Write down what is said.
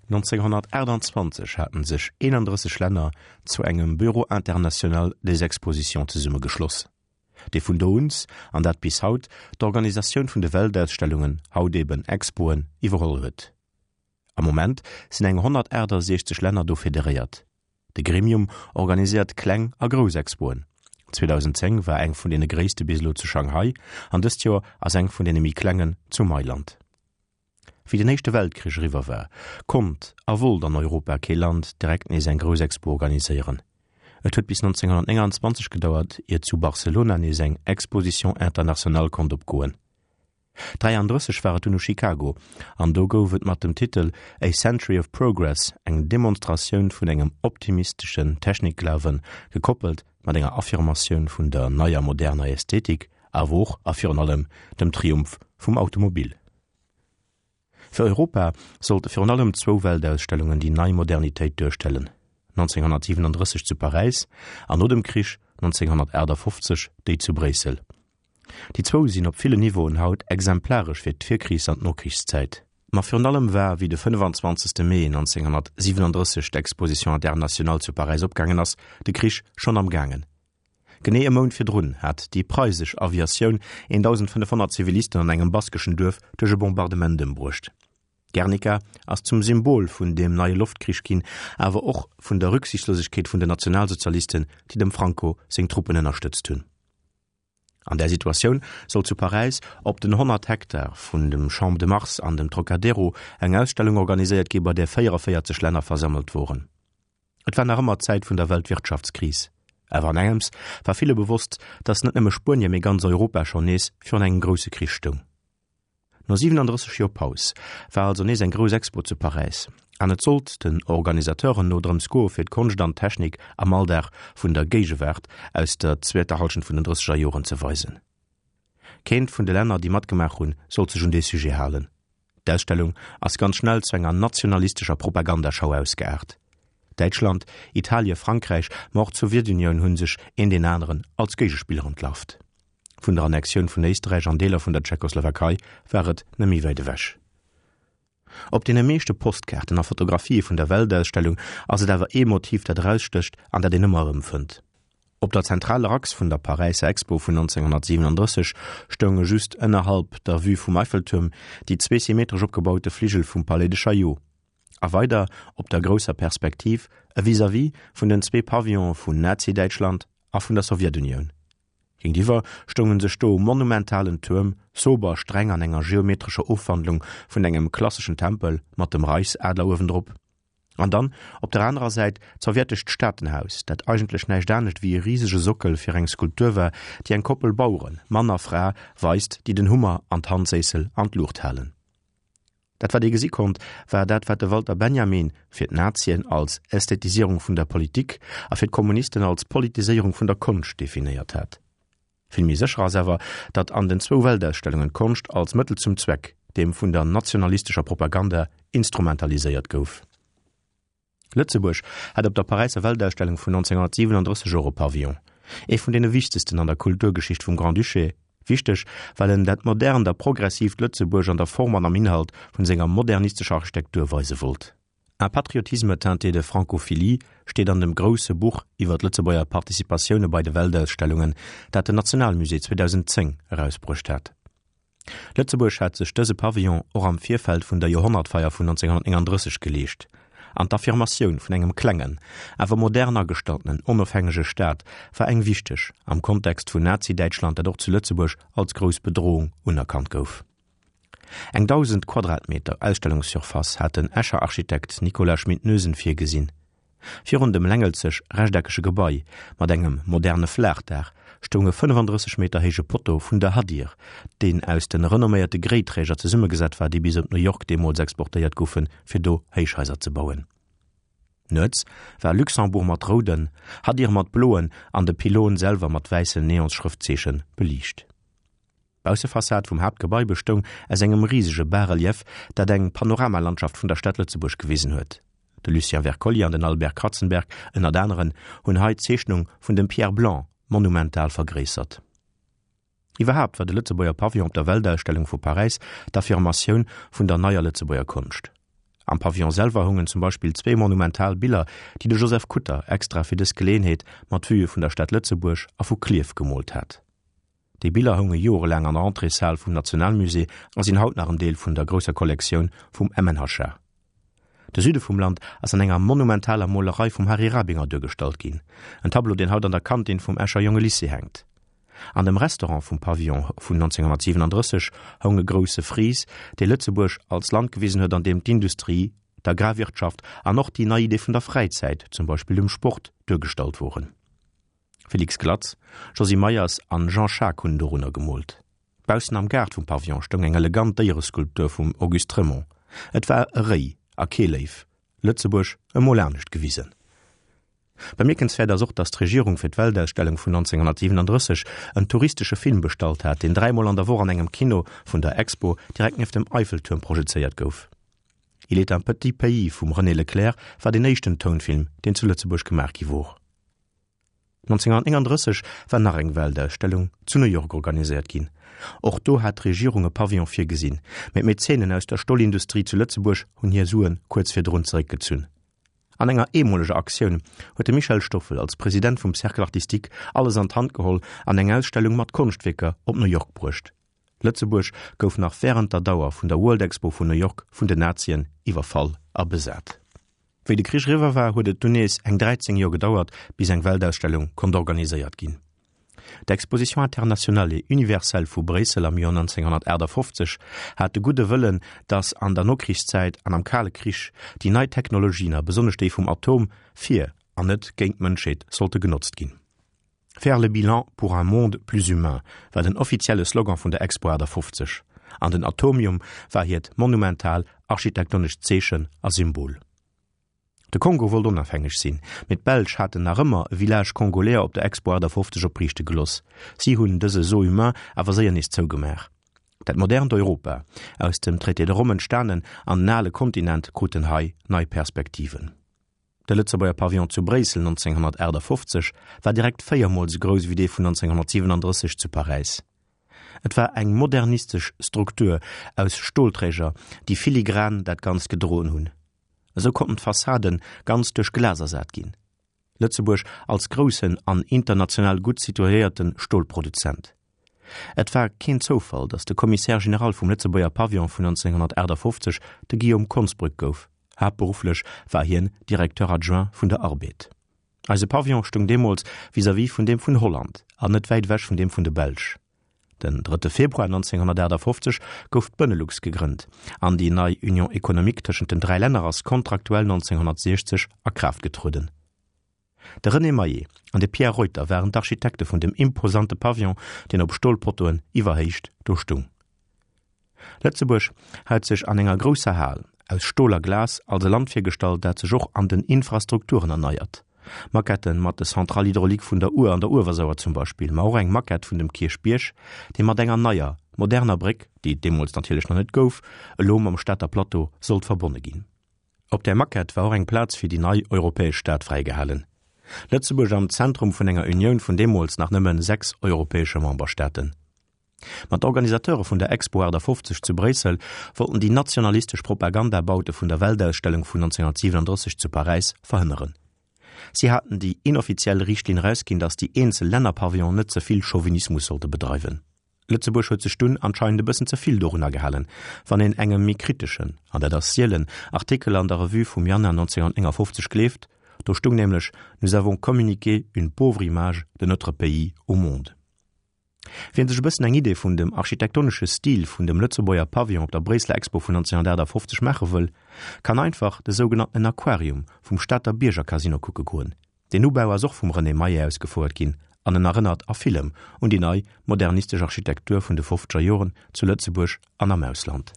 1928 haten sech 31 Länner zu engem Bureau international des expositions zesummegeschloss, dee vun do uns, an dat bis haut, d'Organisatioun vun de Weltausstellungen, haut eben Expoen, iwwerholl huet. Am Moment sinn eng 168 Länner do federéiert. De Gremium organiséiert kleng a grouss Expoen. 2010 war eng vun deene gréisste bis elo zu Shanghai an dëst Joer ass eng vun deene méi klengen zu Mailand. Wéi den Éischte Weltkrich eriwwer war, konnt a wollt an Europa kee Land direkt nees eng grouss Expo organiséieren. Et huet bis 1929 gedauert, ier zu Barcelona nees eng Exposition internationale konnt opgoen. 33 war et dunn u Chicago, an do gouf et mat dem Titel A Century of Progress eng Demonstratioun vun engem optimisteschen Technikglawen, gekoppelt mat enger Affirmatioun vun der neier moderner Ästhetik, awer och a virun allem dem Triumph vum Automobil. Fir Europa sollte virun allem zwou Weltausstellungen déi nei Modernitéit duerstellen, 1937 zu Paräis an no dem Krich 1958 déi zu Bréissel. Déi zwou sinn op villen Niveauen haut exemplaresch fir d'Virkrichs an d'Nokrichszäit. Ma virun allem war, wéi de 25. Mee 1937 d'Exposition internationale zu Paräis opgaangen ass, de Krich schonn am gaangen. Genee e Mount virdrun hat déi preisesch Aviatioun 1.500 Zivilisten an engem baskeschen Duerf duerch e Bombardement ëmbruecht. Guernica ass zum Symbol vun deem neie Loftkrich ginn, awer och vun der Rücksichtslosegkeet vun den Nationalsozialisten, déi dem Franco seng Truppen ënnerstëtzt hunn. An där Situatioun soll zu Paräis op den 100 Hektar vun dem Champ de Mars an dem Trocadero eng Ausstellung organiséiert gi bei där 44 Länner versammelt woren. Et war nach ëmmer d'Zäit vun der Weltwirtschaftskris. Awer an engems war ville bewosst, datt net nëmme Spuenie, mee ganz Europa schonn nees virun engem grousse Krich stoung. No 37 Joer Paus war also nees eng grouss Expo zu Paräis an et sollt den Organisateuren no drëms goe fir d'Konscht an d'Technik am Alldag vun der Géigewaart aus der zweeter Hallschent vun den drësseger Joren ze weisen. Keent vun de Länner déi matgemaach hunn sollt sech un dee Sujet halen. D'Ausstellung ass ganz schnell zu enger nationalistescher Propagandaschau ausgeaart. Däitschland, Italie, Frankräich, ma och d'Sowjetunioun hunn sech een deen aneren als Géigespiller entlarvt. Vun der Annexioun vun Éisträich an Deeler vun der Tschechoslowakei war et net méi wäit ewech. Op deene meeschte Postkaarten a Fotografië vun der Weltausstellung ass et awer ee Motiv, dat erausstécht an dat een ëmmer erëm fënnt. Op der zentraler Achs vun der Paräisser Expo vun 1937 stounge just ënnerhalb der Vue vum Eiffeltuerm déi zwee symmetresch opgebaute Fligel vum Palais de Chaillot a weider op der grousser Perspektiv e Vis-à-vis vun den zwee Pavillone vun Nazi-Däitschland a vun der Sowjetunioun. Géintiwwer stoungen sech do monumentalen Tuerm, sober, streng an enger geometrescher Ofwandlung vun engem klasseschen Tempel mat dem Reichsadler uewendrop. An dann, op der anerer Säit, d'sowjetescht Staatenhaus, dat eigentlech näischt anescht wéi e risege Sockel fir eng Skulptur war, déi eng Koppel Baueren, Mann a Fra, weist, déi den Hummer an d'Handséissel an d'Luucht halen. Dat wat ee gesi konnt, war dat wat de Walter Benjamin fir d'Nazien als Ästhetisierung vun der Politik a fir d'Kommunisten als Politiséierung vun der Konscht definéiert hat. Vill méi sécher ass awer, datt an den zwou Weltausstellungen d'Konscht als Mëttel zum Zweck, deem vun der nationalistescher Propaganda, instrumentaliséiert gouf. Lëtzebuerg hat op der Paräisser Weltausstellung vun 1937 och e Pavillon, ee vun deene wichtegsten an der Kulturgeschicht vum Grand-Duché, wichteg, well en dat modernt a progressiivt Lëtzebuerg an der Form an am Inhalt vun senger modernistescher Architektur weise wollt. Un patriotisme teinté de francophilie steet an dem grousse Buch iwwer d'Lëtzebuerger Participatioune bei de Weltausstellungen, dat den Nationalmusée 2010 erausbruecht hat. Lëtzebuerg hat sech dëse Pavillon och am Virfeld vun der Joerhonnertfeier vun 1939 geleescht, an d'Affirmatioun vun engem klengen, awer modern agestalltenen, onofhängege Staat war eng wichteg am Kontext vun Nazi-Däitschland, dat och zu Lëtzebuerg als grouss Bedrohung unerkannt gouf. Eng 1.000 Quadratmeter Ausstellungssurface hat den Escher Architekt Nicolas Schmit-Noesen virgesinn. Virun dem längelzeg rechteckege Gebai mat engem moderne Flaachdaach stoung e 35 Meter héije Potto vun der Hadir, deen aus de renomméierte Gréiträger zesummegesat war, déi bis op New York deemools exportéiert goufen, fir do Héichhaiser ze bauen. Nuets war Luxembourg mat rouden, Hadir mat bloen an de Pylône selwer mat wäissen Neonsschrëftzeeche beliicht. D'Baussefassad vum Haaptgebai bestoung aus engem risege Bas-relief, dat eng Panoramalandschaft vun der Stad Lëtzebuerg gewisen huet. De Lucien Wercollier an den Albert Kratzenberg, ënnert aneren, hunn hei d'Zeechnung vun dem Pierre Blanc monumental vergréissert. Iwwerhaapt war de Lëtzebuerger Pavillon op der Weltausstellung vu Paräis d'Affirmatioun vun der neier Lëtzebuerger Konscht. Am Pavillon selwer houngen zum Beispill zwéi monumental Biller, déi de Joseph Kutter extra fir dës Geleeënheet mat Vuë vun der Stad Lëtzebuerg a vu Klierf gemoolt hat. Déi Biller hounge jorelaang an der Entréeshal vum Nationalmusée a sinn haut nach en Deel vun der grousser Kollektioun vum MNHA. De Süde vum Land ass an enger monumentaler Molerei vum Harry Rabinger duergestallt ginn, en Tableau, deen haut an der Kantin vum Escher Jongelycée hänkt. An dem Restaurant vum Pavillon vun 1937 houng e grousse Fries, dee Lëtzebuerg als Land gewisen huet, an deem d'Industrie, d'Agrarwirtschaft an och déi nei Idee vun der Fräizäit, zum Beispill dem Sport, duergestallt woren. Félix Glatz, Josy Meyers an Jean Schaack hunn dorunner gemoolt. Baussen am Gaart vum Pavillon stoung eng elegant Déiereskulptur vum Auguste Trémont. Et war e Réi a kee Léiw. Lëtzebuerg emol anescht gewisen. Bemierkenswäert ass och, datt d'Regierung fir d'Weltausstellung vun 1937 en touristesche Film bestallt hat, deen dräimol an der Woch an engem Kino vun der Expo direkt nieft dem Eiffeltuerm projezéiert gouf. Il est un petit pays vum René Leclère war deen éischten Tounfilm, deen zu Lëtzebuerg gemaach gi wor. 1939 war nach eng Weltausstellung zu New York organiséiert ginn. Och do hat d'Regierung e Pavillon virgesinn, mee d'Mäzenen aus der Stolindustrie zu Lëtzebuerg hunn hir Sue kuerz virdrun zeréckgezunn. An enger eemoleger Aktioun huet de Michel Stoffel als President vum Cercle Artistique alles an d'Hand geholl an eng Ausstellung mat Konschtwierker op New York bruecht. Lëtzebuerg gouf nach wärend der Dauer vun der World Expo vun New York vun den Nazien iwwerfall a besat. Wéi de Krich eriwwer war, huet et dunn nees eng 13 Joer gedauert, bis eng Weltausstellung konnt organiséiert ginn. D'Exposition internationale et universelle vu Bréissel am Joer 1958 hat de gudde Wëllen, datt an der Nokrichszäit an am Kale Krich déi nei Technologien a besonnesch déi vum Atom fir an net géint d'Mënschheet sollte genotzt ginn. Faire le bilan pour un monde plus humain war den offizielle Slogan vun der Expo 58 an den Atomium war hiert monumental architektonescht Zeechen a Symbol. De Kongo wollt onafhängeg sinn, mee d'Belsch haten nach ëmmer e Village congolais op der Expo 58 opriichte geloss. Si hunn dëse Zoo humain awer séier nees zougemaach. Dat modernt Europa, aus dem Traité de Rome entstanen, an den ale Kontinent kruten hei nei Perspektiven. De Lëtzebuerger Pavillon zu Bréissel 1958 war direkt véiermol sou grouss ewéi dee vun 1937 zu Paräis. Et war eng modernistesch Struktur aus Stolträger, déi filigran dat Ganzt gedroen hunn. Esou konnten d'Fassaden ganz duerch Glas ersat ginn. Lëtzebuerg als groussen an international gutt situéierte Stolproduzent. Et war keen Zoufall, datt de Commissaire général vum Lëtzebuerger Pavillon vun 1958 de Guillaume Konsbrück gouf. Haaptberufflech war hien Directeur adjoint vun der Arbed. Eise Pavillon stoung deemools vis-à-vis vun deem vun Holland an net wäit ewech vun deem vun de Belsch. Den drëtte Februar 1958 gouf d'Benelux gegrënnt an déi nei Union économique tëschent den dräi Länner ass kontraktuell 1960 a Kraaft getrueden. De René Maillet an de Pierre Reuter waren d'Architekte vun dem imposante Pavillon, deen op Stolpottoen iwwer Héicht do stung. Lëtzebuerg hat sech an enger grousser Hal aus Stol a Glas als e Land virgestallt, dat sech och an den Infrastrukturen erneiert. Maquetten mat de Centrales hydrauliques vun der Our an der Uewersauer zum Beispill, ma och eng Maquette vun dem Kierchbierg, dee mat enger neier, moderner Bréck, déi et deemools natierlech nach net gouf, elo mam Stater Plateau sollt verbonne ginn. Op där Maquette war och eng Plaz fir déi nei europäesch Stad fräigehalen. Lëtzebuerg am Zentrum vun enger Unioun vun deemools nach nëmme 6 europäesche Memberstaaten. Ma d'Organisateure vun der Expo 58 zu Bréissel wollten déi nationalistesch Propagandabaute vun der Weltausstellung vun 1937 zu Paräis verhënneren. Si haten déi inoffiziell Riichtlinn erausginn, datt déi eenzel Lännerpavillonen net ze vill Chauvinismus sollte bedreiwen. Lëtzebuerg huet sech dunn anscheinend e bëssen ze vill dorunner gehalen, wann een engem méi kriteschen, an dat ass sielen, Artikel an der Revue vum Januar 1959 gleeft. Do stung nämlech, Nous avons communiqué une pauvre image de notre pays au monde. Wien sech e bëssen eng Idee vun dem architektonesche Stil vun dem Lëtzebuerger Pavillon op der Bréisseler Expo vun 1958 maache wëll, kann einfach de sougenanntenen Aquarium vum Stater Bierger-Casino kucke goen. Deen Ubau ass och vum René Maillet ausgefouert ginn an en erënnert a villem un déi nei modernistesch Architektur vun de fofzeger Joren zu Lëtzebuerg an am Ausland.